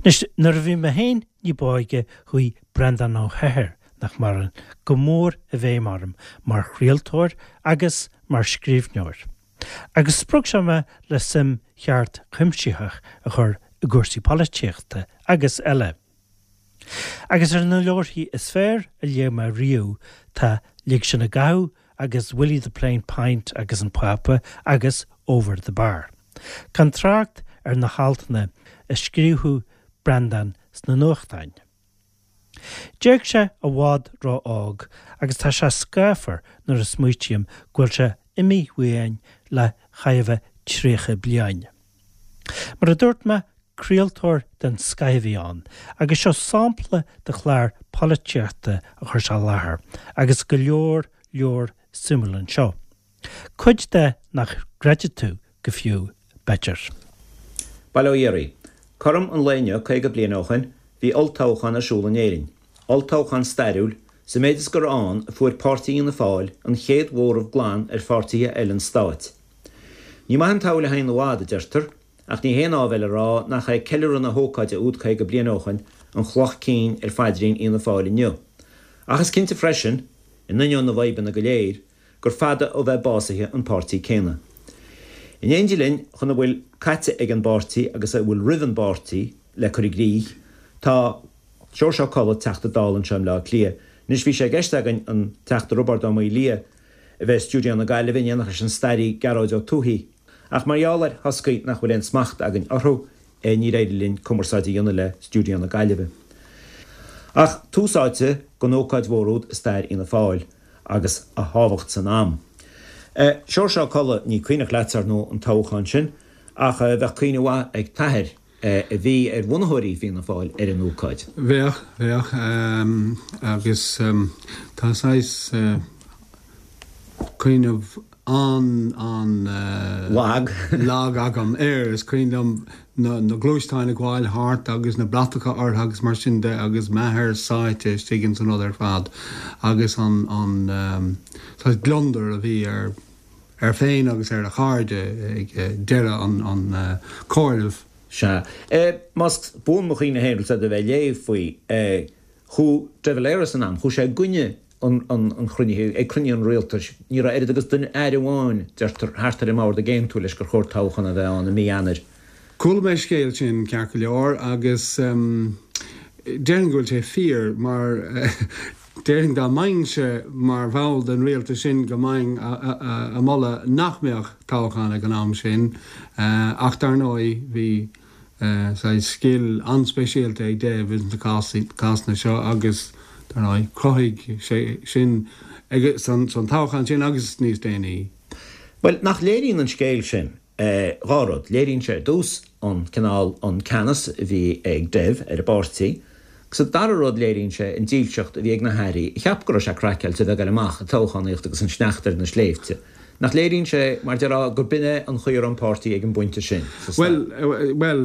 Anois, nuair a bhí mé féin ní b'óige chuaigh Breandán Ó hEithir, nach maireann, go mór i bhfeidhm orm mar chraoltóir agus mar scríbhneoir. Agus spreag sé mé le suim cheart chuimsitheach a chur i gcúrsaí polaitíochta agus eile. Agus ar na leabharthaí is fearr a léigh mé riamh tá Lig Sinn i gCathú agus Willie the Plain Pint agus an Pápa agus Over the Bar. Gan trácht ar na haltanna a scríobhadh Breandán sna nuachtáin. D'éag sé i bhfad ró-óg agus tá sé scáfar nuair a smaoitím go bhfuil sé imithe uainn le chóir a bheith 30 bliain. Mar a dúirt mé, craoltóir den scoith a bhí ann agus seo sampla de chlár polaitíochta a chuir sé i láthair agus go leor leor suimiúil anseo. Cuid de nach gcreidfidh tú go fiú, b'fhéidir. Bail ó Dhia oraibh. Cothrom an lae inniu 50 bliain ó shoin, bhí olltoghchán ar siúl in Éirinn. Olltoghchán stairiúil, sa méid is gur ann a fuair Páirtí Fhianna Fáil an chéad mhóramh glan ar pháirtithe eile an stáit. Ní maith an tsamhail a théann i bhfad, a deirtear, ach ní haon áibhéil a rá nach é ceiliúradh na hócáide úd 50 bliain ó shoin an chloch cinn ar phaidrín Fhianna Fáil inniu. Ach is cinnte freisin, in ainneoin na bhfadhbanna go léir, gur fada ó bheith básaithe an páirtí céanna. In éindí linn chun a bhfuil caite ag an bpáirtí agus a bhfuil roimh an bpáirtí le cur i gcrích, tá Seoirse Ó Colla, Teachta Dála anseo i mBleá Cliath. Anois bhí sé i gceist againn an Teachta Roibeárd Ó Maolaodha a bheith i stiúideo na Gaillimhe in éineacht leis an staraí Gearóid Ó Tuathaigh, ach mar gheall ar thoscaí nach bhfuil aon smacht againn orthu, níor éirigh linn cumarsáid a dhéanamh le stiúideo na Gaillimhe. Ach tús áite don ócáid mhór úd i stair Fhianna Fáil agus a thábhacht san am. Seoirse Ó Colla, ní cuimhneach leatsa, ar ndóigh, an toghchán sin, ach bheadh cuimhne mhaith ag t'athair, a bhí ar bhunaitheoirí Fianna Fáil, ar an ócáid. Bheadh, bheadh, agus tá saghas cuimhneamh an-an. Lag. lag agam air. Is cuimhin liom na gluaisteáin ag gabháil thart agus na bratacha orthu agus mar sin de agus m'athair sáite istigh ins an rud ar fad agus an an saghas gliondar a bhí air air féin agus ar a chairde ag deireadh an an chomhairimh. Sea. Más buan mo chuimhne féin, rud a bheith ag léamh faoi, chuaigh De Valera san am, chuaigh sé i gcoinne an chruinnithe, ag cruinniú an rialtais, ní raibh oiread agus duine, aire amháin, deirtear, thart ar an mbord ag aontú leis gur chóir toghchán a bheith ann i mí Eanáir. Chuala mé an scéal sin, ceart go leor, agus déarfainn go bhfuil sé fíor, mar déarfainn dá mbeinnse mar bhall den rialtas sin go mbeinn a moladh nach mbeadh toghchán ag an am sin, ach dar ndóigh bhí saghas scil an-speisialta ag Dev ins na cásanna seo agus, dar ndóigh, chruthaigh sé sin san toghchán sin agus níos déanaí. Bhuel, nach léiríonn an scéal sin dhá rud. Léiríonn sé ar dtús an cineál, an ceannas a bhí ag Dev ar an bpáirtí agus an dara rud léiríonn sé an dílseacht a bhí ag na hairí a cheap go raibh sé craiceáilte a bheith ag goil amach ag toghchánaíocht agus an sneachta ar na sléibhte. Nach léiríonn sé, mar déarfá, gur b'in é an chaoi a raibh an páirtí ag an bpointe sin sa stair? Bhuel, bhuel,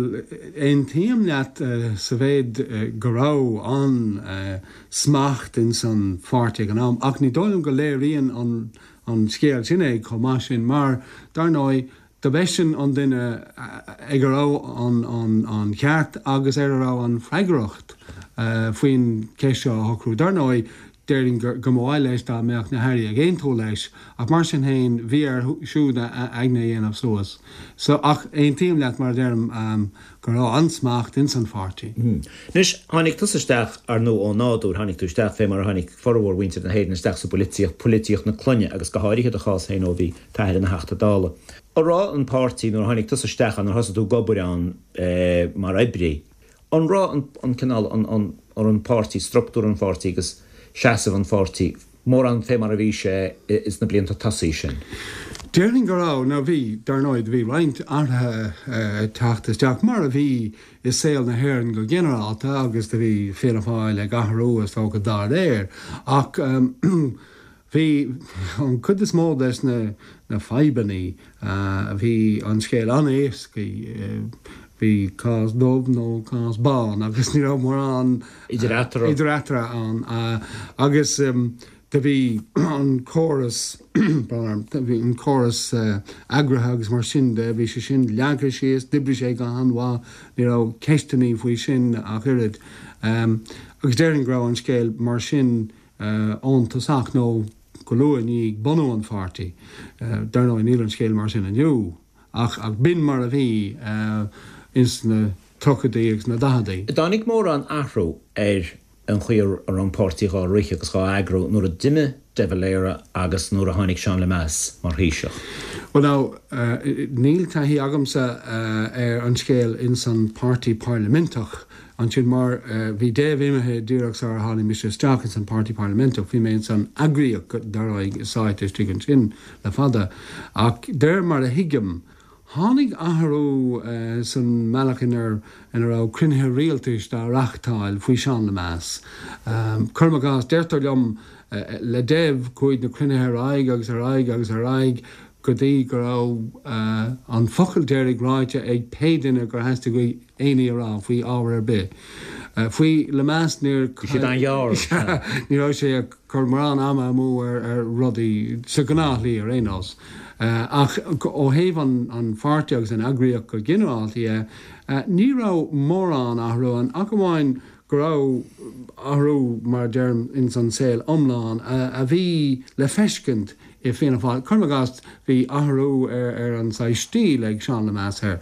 aontaím leat sa mhéid go raibh an-smacht ins an pháirtí ag an am, ach ní dóigh liom go léiríonn an an scéal sin é chomh maith sin, mar, dar ndóigh, do b'eisean an duine ag a raibh an ceart agus ar a raibh an freagracht faoin cheist seo a shocrú. Dar ndóigh, Déarfainn go mba mhaith leis dá mbeadh na hairí ag aontú leis, ach mar sin féin, bhí air siúd a aigne a dhéanamh suas. So, ach aontaím leat, mar a deirim, go raibh an-smacht ins an pháirtí. Anois, tháinig tusa isteach, ar ndóigh, ó nádúr, tháinig tú isteach fé mar a tháinig formhór mhuintir na hÉireann isteach sa bpolaitíocht, polaitíocht na clainne agus go háirithe do chás féin ó bhí t'athair ina Theachta Dála. An raibh an páirtí, nuair a tháinig tusa isteach ann, nuair a thosaigh tú ag obair ann mar oibrí, An raibh an cineál, an an páirtí, structúr an pháirtí agus seasamh an pháirtí mórán fé mar a bhí sé ins na blianta tosaigh sin? Déarfainn go raibh. Now bhí, dar ndóigh, bhí roinnt athruithe ag teacht isteach, mar a bhí i saol na hÉireann go ginearálta agus do bhí Fianna Fáil ag athrú is dócha dá réir. Ach bhí an chuid is mó des na na fadhbannaí, Bhí an scéal an-éascaí, bhí cás dubh nó cás bán agus ní raibh mórán idir eatarthu ann. Agus. Do bhí an córas, bhí an córas eagraithe agus mar sin de, bhí sé sin leagtha síos, d'oibrigh sé go han-mhaith, ní raibh ceisteannaí faoi sin ach oiread. Agus déarfainn go raibh an scéal mar sin ón tosach nó go luath i ndiaidh bunú an pháirtí. Dar ndóigh níl an scéal mar sin inniu ach b'in mar a bhí ins na tríochaidí agus na daicheadaí. Dtáinig mórán athrú ar an chaoi a raibh an páirtí dhá rith agus dhá eagrú nuair a d'imigh De Valera agus nuair a tháinig Seán Lemass mar Thaoiseach. Bhuel now, níl taithí agamsa ar an scéal ins an páirtí pairliminteach ansin mar bhí Dev imithe díreach sar a tháinig mise isteach ins an páirtí pairliminteach. Bhí mé ins an eagraíocht dar ndóigh sáite istigh ansin le fada. Ach de réir mar a thuigim, Tháinig athrú san mbealach ina raibh cruinnithe rialtais dá reáchtáil faoi Seán Lemass. Cuirim i gcás, deirtear liom, le Dev chuaigh na cruinnithe ar aghaidh agus ar aghaidh agus ar aghaidh go dtí go raibh an focal deiridh ráite ag pé duine gur theastaigh uaidh aon ní a rá faoi ábhar ar bith. Faoi Lemass níor. Bhí siad an-ghearr. Ní raibh sé ag cur mórán ama amú ar rudaí, sa ghnáthshlí ar aon nós. Ach ó thaobh an pháirtí agus an eagraíocht go ginearálta dhe, ní raibh mórán athrú ann ach amháin go raibh athrú, mar a deirim, ins an saol iomlán a bhí le feiscint i Fianna Fáil. Cuirim i gcás, bhí athrú ar an saghas stíl ag Seán Lemass ar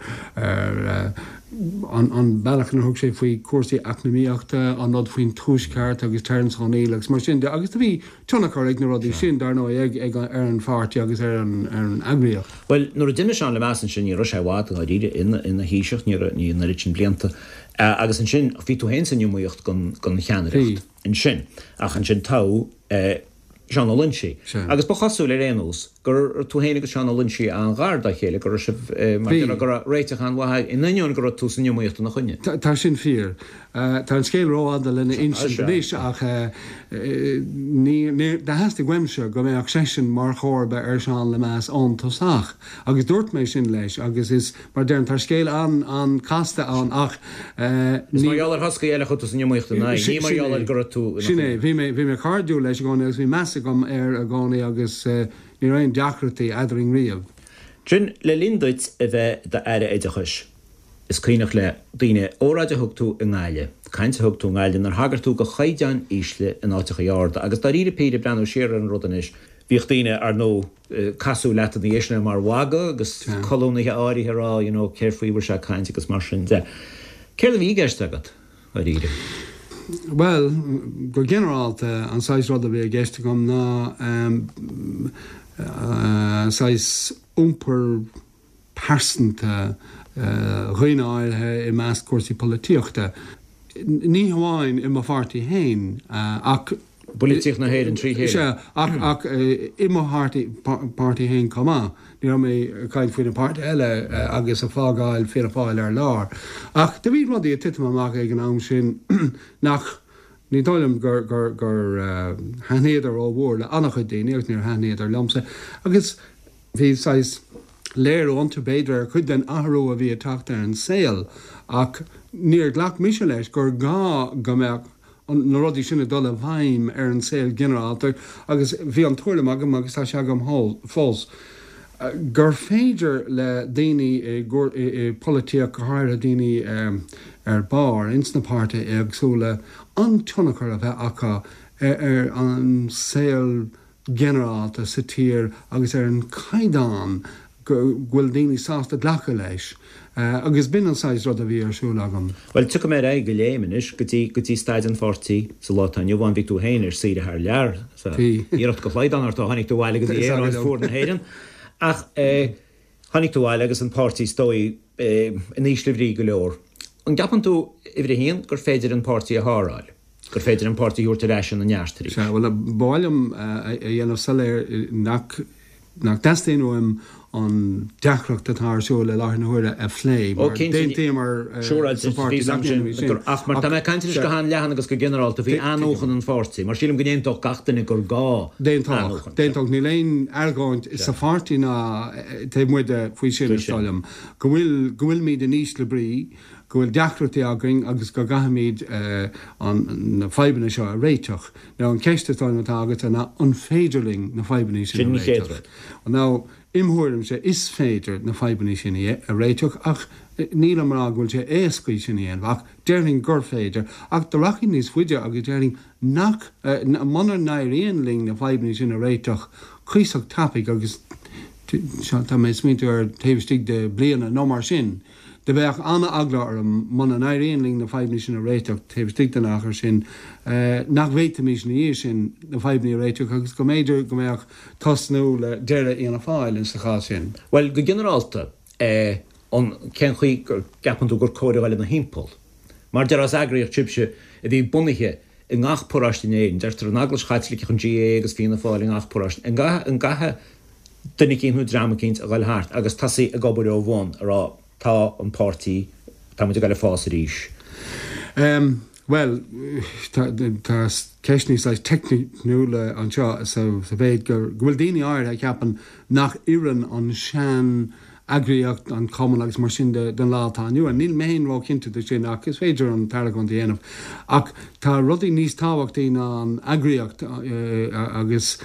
an bealach inar thug sé faoi chúrsaí eacnamaíochta, an rud faoin Tuaisceart agus Terence O'Neill agus mar sin de agus do bhí tionchar ag na rudaí sin, dar ndóigh, ag ar an pháirtí agus ar an eagraíocht. Bhuel, nuair a d'imigh Seán Lemass ansin, ní raibh sé i bhfad, dáiríre, ina Thaoiseach, ní raibh, ní an oiread sin blianta. Agus ansin, bhí tú féin san iomaíocht don cheannaireacht ansin. Ach ansin toghadh Seán Ó Loinsigh. Agus ba chosúil, ar aon nós, go raibh tú féin agus Seán Ó Loinsigh an-ghar dá chéile, go raibh sibh, mar a déarfá, go raibh réiteach an-mhaith agaibh, in ainneoin go raibh tú san iomaíocht ina choinne. Tá sin fíor. Tá an scéal rófhada lena insint anois ach ní, do theastaigh uaimse go mbeadh seisean mar chomharba ar Seán Lemass ón tosach agus dúirt mé sin leis agus is, mar a deirim, tá scéal an-chasta ann ach ní. Is mar gheall ar thoscaí eile a chuaigh tú san iomaíocht ina aghaidh, ní mar gheall ar go raibh tú ina choinne. Sin é. Bhí mé, bhí mé cairdiúil leis i gcónaí agus bhí meas agam air i gcónaí agus ní raibh aon deacrachtaí eadrainn riamh. Sin, le linn duit a bheith i d'Aire Oideachais, is cuimhneach le daoine óráid a thug tú i nGaillimh, caint a thug tú i nGaillimh inar thagair tú do chaighdeáin ísle in áiteachaí arda agus dáiríre píre, breathnú siar ar an rud anois, bhíodh daoine, ar ndóigh, ag casadh leat ina dhiaidh sin mar mhagadh agus colúnaithe áirithe ag rá you know céard faoi a bhfuil sé ag caint agus mar sin de. Céard a bhí i gceist agat, dáiríre? Bhuel, go ginearálta, an saghas rud a bhí i gceist agam ná saghas iompar pearsanta dhaoine áirithe i measc cúrsaí polaitíochta, ní hamháin i mo pháirtí féin ach. bpolaitíocht na hÉireann trí chéile. Sea, ach ach i mo pháirtí féin chomh maith. Ní raibh mé ag caint faoi na páirtithe eile agus ag fágáil Fianna Fáil ar lár. Ach do bhí rudaí ag titim amach ag an am sin nach, ní dóigh liom gur gur gur thaitníodar rómhór le an-chuid daoine agus níor thaitníodar liomsa. Agus Bhí saghas léiriú iontu, b'fhéidir, ar chuid den athrú a bhí ag teacht ar an saol ach níor ghlac mise leis gur gá go mbeadh na rudaí sin ag dul i bhfeidhm ar an saol ginearálta agus bhí an tuairim agam, agus tá sé agam fós, gur féidir le daoine i bpolaitíocht, go háirithe daoine ar barr ins na páirtithe éagsúla, an-tionchar a bheith acu ar an saol ginearálta sa tír agus ar an chaighdeán go bhfuil daoine sásta glacadh leis agus b'in an saghas rud a bhí ar siúl agam. Bhuel, tiocfaidh mé ar aghaidh de léim anois go dtí, go dtí staid an pháirtí sa lá atá inniu ann. Bhí tú féin ar saoire thar lear, sa iarracht go shlaghdán ort ó tháinig tú abhaile go dtí Éire, áit fuar na hÉireann. Ach eh, tháinig tú abhaile agus an páirtí is dóigh eh, in ísle bhrí go leor. An gceapann tú, uimhir a haon, gur féidir an páirtí a sháráil? gur féidir an páirtí a thabhairt ar ais ina neart arís. Sea, bhuel, ba mhaith liom a dhéanamh soiléir nach nach dteastaíonn uaim an deacracht atá ar siúl i láthair na huaire a phlé, mar d'aontaíomar sa pháirtí nach ndéanfaimid sin. Ach mar tá mé ag caint anois go han-leathan agus go ginearálta faoi athnuachan an pháirtí, mar sílim go n-aontódh gach duine gur gá athnuachan. D'aontódh. Níl aon argóint sa pháirtí ná taobh amuigh de faoi sin, is dóigh liom, go bhfuil, go bhfuilimid in ísle brí. go bhfuil deacrachtaí againn agus go gcaithfimid na fadhbanna seo a réiteach. Now an cheist is dóigh liom atá agatsa ná an féidir linn na fadhbanna sin a réiteach? Now im thuairimse is féidir na fadhbanna sin a réiteach ach nílim ag rá go bhfuil sé éasca sin a dhéanamh ach déarfainn gur féidir. Ach do rachainn níos faide agus déarfainn nach, muna n-éiríonn linn na fadhbanna sin a réiteach cuíosach tapaidh agus tá mé ag smaointiú ar taobh istigh de bliana nó mar sin, do bheadh an-eagla orm muna n-éiríonn linn na fadhbanna sin a réiteach taobh istigh den achar sin, nach bhféadfaimis ina dhiaidh sin na fadhbanna a réiteach agus go mb'fhéidir go mbeadh tosnú le deireadh Fhianna Fáil insa chás sin. Bhuel, go ginearálta, an, cén chaoi go gceapann tú gur cóir a dhul ina thimpeall? Mar déarfá is eagraíocht sibhse a bhí bunaithe i ngach paróiste in Éirinn, deirtear an Eaglais Chaitliceach, an GAA agus Fianna Fáil i ngach paróiste, an gcaithfidh duine eicínt nó dream eicínt a dhul thart agus tosaí ag obair ó bhun a rá tá an páirtí, tá muid ag dul ag fás arís. Bhuel, tá ceisteanna saghas teicniúla anseo sa mhéid go bhfuil daoine áirithe a cheapann nach oireann an sean eagraíocht, an cumann agus mar sin de don lá atá inniu ann. Níl mé féin róchinnte de sin ach is féidir an t-argóint a dhéanamh. Ach tá rudaí níos tábhachtaí ná an eagraíocht agus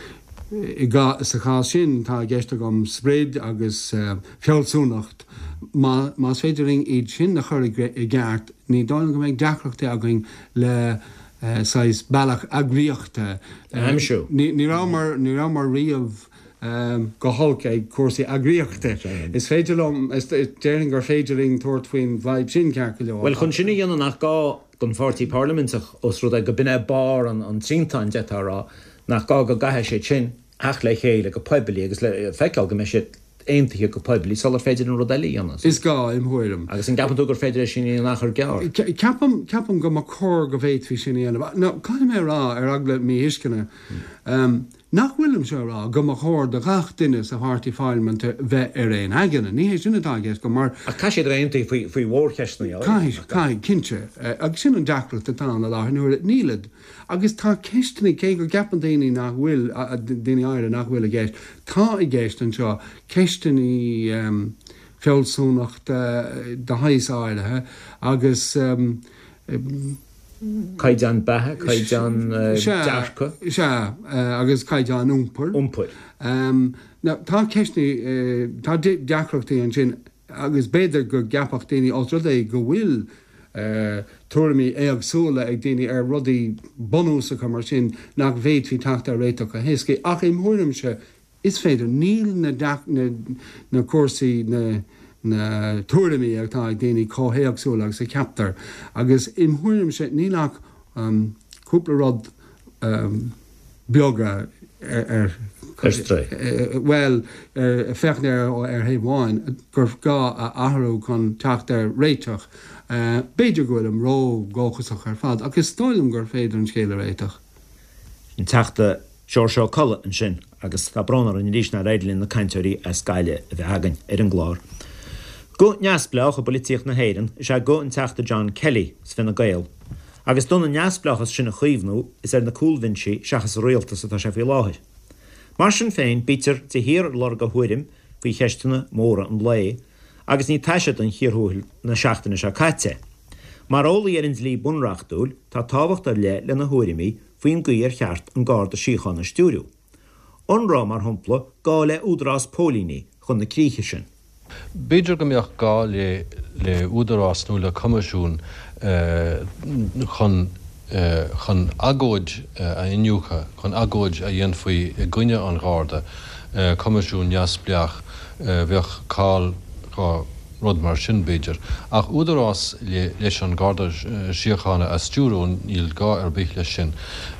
sa chás sin tá i gceist agam sprid agus fealsúnacht. Más féidir linn iad sin a chur i gceart ní dóigh liom go mbeidh deacrachtaí againn le saghas bealach eagraíochta a aimsiú. Ní rabhamar, ní rabhamar riamh go holc ag cúrsaí eagraíochta. Is féidir liom, déarfainn gur féidir linn tabhairt faoin bhfadhb sin ceart go leor. Bhuel, chun sin a dhéanamh nach gá don pháirtí parlaiminteach, ós rud é go b'in é barr an triantáin, d'fhéadfá a rá, nach gá go gcaithfidh siad sin theacht le chéile go poiblí agus le feiceáil go mbeidh siad aontaithe go poiblí sular féidir an rud eile a dhéanamh. Is gá, im thuairim. Agus an gceapann tú gur féidir é sin a dhéanamh in achar gearr? Ceapaim, ceapaim go mba chóir go bhféadfaí sin a dhéanamh. Now, caithfidh mé a rá, ar eagla míthuisceana, Nach bhfuilimse a rá go mba chóir do ghach duine sa pháirtí pharlaiminte bheith ar aon aigne. Ní hé sin atá i gceist agam, mar. Ach caithfidh siad a bheith aontaithe faoi, faoi mhórcheisteanna áirithe, Caithfidh, caithfidh, cinnte. Agus sin an deacracht atá ann i láthair na huaire. Nílid. Agus tá ceisteanna, cé go gceapann daoine nach bhfuil, daoine áirithe nach bhfuil i gceist, tá i gceist anseo ceisteanna fealsúnachta de shaghas áirithe agus. Caighdeán beatha, caighdeán dearcadh. Sea, agus caighdeán iompair. Iompair. Now, tá ceisteanna, tá deacrachtaí ansin agus b'fhéidir go gceapfadh daoine, ós rud é go bhfuil tuairimí éagsúla ag daoine ar rudaí bunúsacha mar sin, nach bhféadfaí teacht ar réiteach go héasca. Ach im thuairimse, Is féidir. Níl na na cúrsaí, na na tuairimí atá ag daoine chomh héagsúil agus a cheaptar. Agus im thuairimse níl ach cúpla rud beaga ar Ar strae. bhuel, féachaint air ar thaobh amháin, gur gá a athrú chun teacht ar réiteach. B'fhéidir go bhfuilim ró-dhóchasach ar fad, ach is dóigh liom gur féidir an scéal a réiteach. An Teachta Seoirse Ó Colla ansin agus tá brón orainn arís nár éirigh linn na cainteoirí as Gaillimh a bheith againn ar an gclár. Guth neamhspleách i bpoilitíocht na hÉireann is ea guth an Teachta John Kelly as Fine Gael agus d'fhonn an neamhspleáchas sin a chaomhnú is ar na cúlbhinsí seachas sa rialtas atá sé faoi láthair. Mar sin féin bítear de shíor ag lorg a thuairim faoi cheisteanna móra an lae agus ní taise don chíor thuathail na seachtaine seo caite. Mar eolaí ar an dlí bunreachtúil tá tábhacht ar leith lena thuairimí faoin gcaoi ar cheart an Garda Síochána a stiúriú. An raibh, mar shampla, gá le údarás póilíní chun na críche sin? B'fhéidir go mbeadh gá le le údarás nó le coimisiún chun chun agóid a iniúchadh, chun agóid a dhéanfaí i gcoinne an Gharda, coimisiún neamhspleách, bheadh call go rud mar sin, b'fhéidir. Ach údarás leis an Garda Síochána a stiúrú, níl gá ar bith leis sin.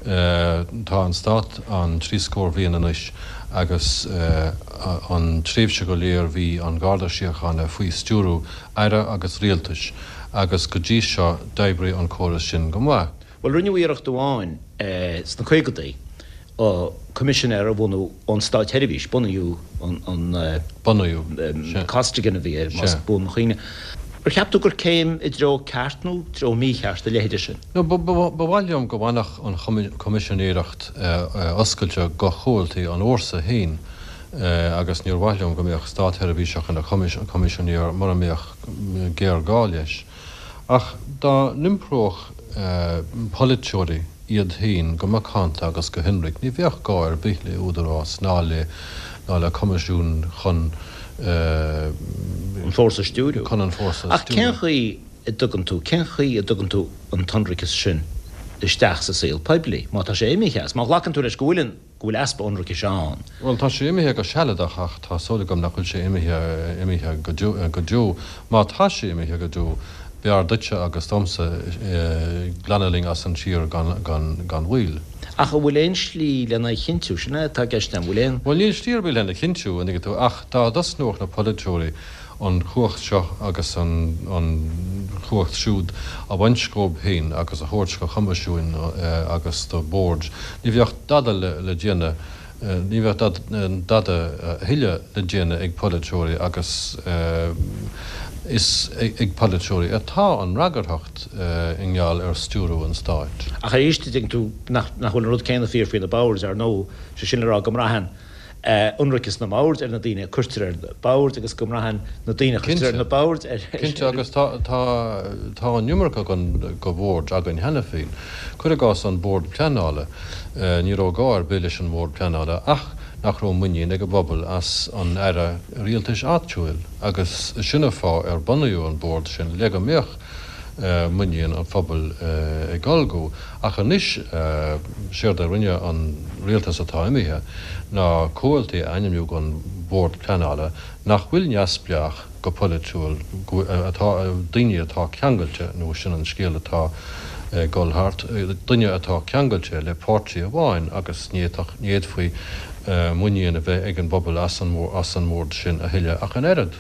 Tá an Stát ann trí scór bhliain anois agus an tréimhse go léir bhí an Garda Síochána faoi stiúrú Aire agus Rialtais agus go dtí seo d'oibrigh an córas sin go maith. Bhuel, rinneadh iarracht amháin sna caogadaí coimisinéir a bhunú ón státsheirbhís, bunaíodh an. Bunaíodh, sea. Costigan a bhí air, más buan mo chuimhne. Ar cheap tú gur céim i dtreo ceart nó treo mícheart a leithéide sin? No, ba mhaith liom go bhfanfadh an choimisinéireacht oscailte go chomhaltaí an fhórsa féin agus níor mhaith liom go mbeadh státsheirbhíseach ina choimisinéir mura mbeadh géarghá leis. Ach dá n-iompródh polaiteoirí iad féin go macánta agus go hionraic, ní bheadh gá ar bith le údarás ná le ná le coimisiún chun an fórsa a stiúriú. chun an fórsa a Ach cén stiúriú. chaoi a dtugann tú, cén chaoi a dtugann tú an t-ionraiceas sin isteach sa saol poiblí, má tá sé imithe as, má ghlacann tú leis go bhfuil an, go bhfuil easpa ionraicis ann? Bhuel, tá sé imithe go sealadach ach tá súil agam nach bhfuil sé imithe, imithe go deo, go deo. Má tá sé imithe go deo, b'fhearr duitse agus domsa glanadh linn as an tír gan, gan, gan mhoill. Ach an bhfuil aon slí lena chinntiú? Sin é atá i gceist agam. An bhfuil aon. Bhuel, níl slí ar bith lena chinntiú, an dtuigeann tú, ach dá dtosnódh na polaiteoirí an chumhacht seo agus an chumhacht siúd a bhaint dhóibh féin agus a thabhairt do choimisiúin agus do bhoird, ní bheadh dada le déanamh, ní bheadh dada a thuilleadh le déanamh ag polaiteoirí agus is ag polaiteoirí atá an fhreagarthacht i ngeall ar stiúrú an stáit. Ach arís, tuigeann tú nach bhfuil an rud céanna fíor faoi na boird, ar ndóigh, sé sin le rá go mbraitheann ionraiceas na mbord ar na daoine a cuirtear ar na boird agus go mbraitheann na daoine a chuirtear ar na boird ar. Cinnte, agus tá, tá, tá an iomarca de bhoird againn cheana féin. Cuir i gcás an Bord Pleanála. Ní raibh gá ar bith leis an mBord Pleanála ach nach raibh muinín ag an bpobal as an Aire Rialtais Áitiúil agus sin an fáth ar bunaíodh an Bord sin le go mbeadh muinín an phobail ag dul go. Ach anois, séard a rinne an rialtas atá imithe ná comhaltaí a ainmniú don Bhord Pleanála nach bhfuil neamhspleách go polaitiúil, atá, daoine atá ceangailte, nó sin an scéal atá ag dul thart, duine atá ceangailte le páirtí amháin agus ní fhéadfaí muinín a bheith ag an bpobal as an mBord sin a thuilleadh ach an oiread.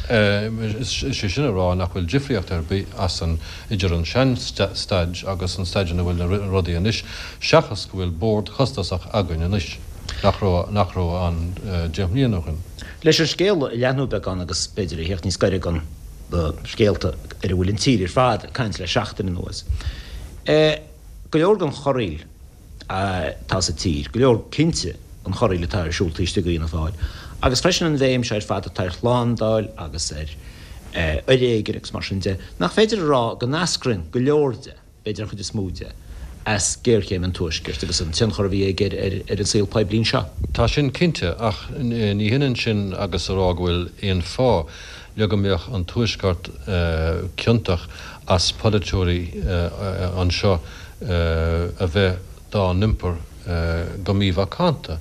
Is é sin a rá nach bhfuil difríocht ar bith as an idir an sean-staid agus an staid ina bhfuil na rudaí anois, seachas go bhfuil bord costasach againn anois nach raibh nach raibh ann 10 mbliana ó shin. Leis an scéal a leathnú beagán agus b'fhéidir a theacht níos gaire don na scéalta ar a bhfuil an tír ar fad ag caint le seachtain anuas. Go leor den chorraíl atá sa tír, go leor cinnte an chorraíl atá ar siúl taobh istigh d'Fhianna Fáil, agus freisin an bhéim seo ar fad atá ar shlándáil agus ar fhoréigean agus mar sin de, nach féidir a rá go n-eascraíonn go leor de, b'fhéidir an chuid is mó de, as géarchéim an Tuaiscirt agus an tionchar a bhí aige ar an saol poiblí anseo. Tá sin cinnte, ach ní hionann sin agus a rá go bhfuil aon fáth le go mbeadh an Tuaisceart ciontach as polaiteoirí anseo a bheith dá n-iompar go mímhacánta.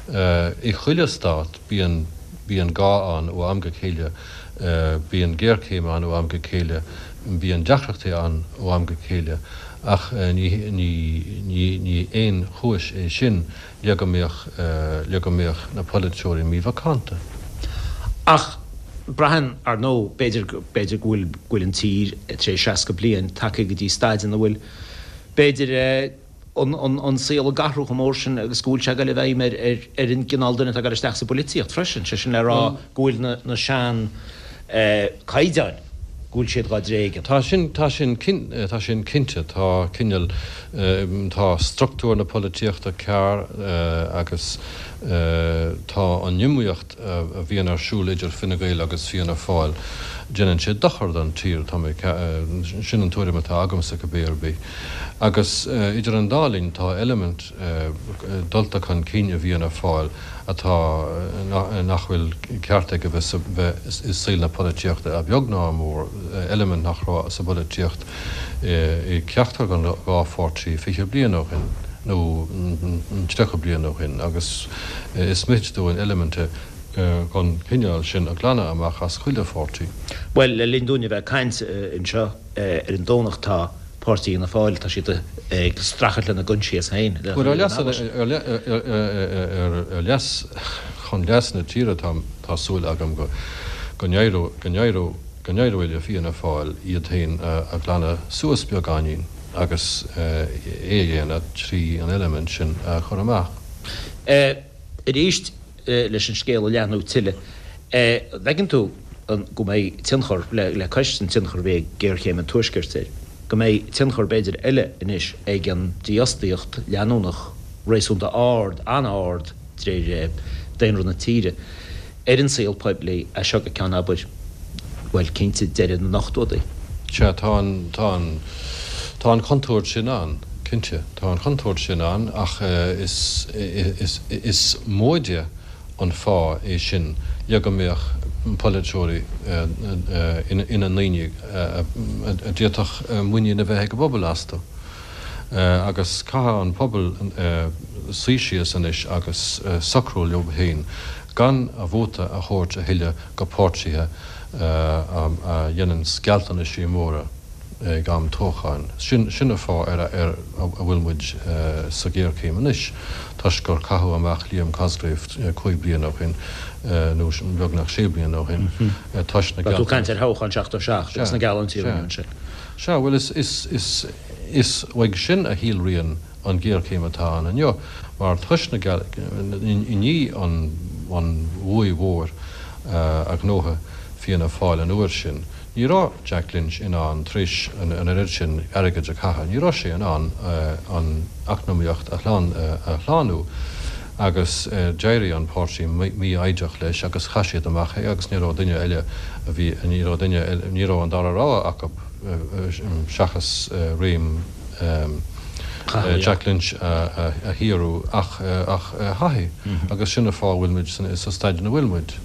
I chuile stát bíonn bíonn gá ann ó am go chéile, bíonn géarchéim ann ó am go chéile, bíonn deacrachtaí ann ó am go chéile ach ní ní ní aon chúis é sin le go mbeadh le go mbeadh na polaiteoirí mímhacánta. Ach braitheann, ar ndóigh, b'fhéidir, b'fhéidir go bhfuil, go bhfuil an tír tar éis 60 bliain tagtha go dtí staid ina bhfuil, b'fhéidir, an, an, an saol ag athrú chomh mór sin agus go bhfuil sé ag dul i bhfeidhm ar, ar, ar an gcineál duine atá ag dul isteach sa bpolaitíocht freisin, sé sin le rá go bhfuil na, na sean, eh, caighdeáin, go bhfuil siad dhá dtréigean. Tá sin, tá sin, tá sin cinnte. Tá cineál, tá struchtúr na polaitíochta cearr agus tá an iomaíocht a bhíonn ar siúl idir Fine Gael agus Fianna Fáil, déanann sé dochar don tír, tá mé, sin an tuairim atá agamsa cibé ar bith. Agus idir an dá linn tá eilimint dulta chun cinn i bhFianna Fáil, atá, nach bhfuil ceart aige bheith sa, bheith i saol na polaitíochta, a bheag ná a mhór, eilimint nach raibh sa bpolaitíocht i gceachtar den dhá pháirtí 20 bliain ó shin, nó 30 bliain ó shin, agus is mithid dúinn eiliminte den chineál sin a ghlanadh amach as chuile pháirtí. Bhuel, le linn dúinn a bheith ag caint anseo ar an Domhnach tá. Páirtí Fhianna Fáil, tá siad ag streachailt lena gcoinsias féin. Bhuel, ar leas, ar leas, chun leas na tíre tá, tá súil agam go, go n-éireoidh, go n-éireoidh, go n-éireoidh le Fianna Fáil iad féin a ghlanadh suas beagáinín agus é a dhéanamh trí an eilimint sin a chur amach. Arís, leis an scéal a leathnú tuilleadh, an bhfeiceann tú go mbeidh tionchar, le cois an tionchar a bhí ag géarchéim an Tuaiscirt air, go mbeidh tionchar b'fhéidir eile anois ag an dífhostaíocht leanúnach réasúnta ard, an-ard de réir daonra na tíre, ar an saol poiblí as seo go ceann, abair, bhuel, cinnte, deireadh na n-ochtóidí? Sea, tá an, tá an, tá an chontúirt sin ann, cinnte. Tá an chontúirt sin ann ach is, is, is móide an fáth é sin le go mbeadh polaiteoirí ina ndaoine a d'fhéadfadh muinín a bheith ag an bpobal astu. Agus caithfidh an pobal suí síos anois agus socrú leo féin gan a vóta a thabhairt a thuilleadh go páirtithe a dhéananns gealltanaisí móra ag am toghcháin. Sin an fáth ar a bhfuil muid sa ghéarchéim anois, toisc gur caitheadh amach Liam Cosgrave 5 bliana ó shin, nó beagnach 6 bliana ó shin, toisc na Tá tú ag caint ar thoghchán 77 agus na geallúintí a rinneadh ansin. Sea, bhuel is is uaidh sin a shíolraíonn an ghéarchéim atá ann inniu, mar toisc na i ndiaidh an bhuaidh mhór a ghnóthaigh Fianna Fáil an uair sin, ní raibh Jack Lynch in ann, tar éis an oiread sin airgid a chaitheamh, ní raibh sé in ann an eacnamaíocht a shlánú agus d'éirigh an páirtí mífhoighdeach leis agus chaith siad amach é agus ní raibh duine eile a bhí, ní raibh duine eile, ní raibh an dara rogha acu seachas réim. Jack Lynch a shaothrú ach Haughey agus sin an fáth a bhfuil muid sa staid ina bhfuil muid.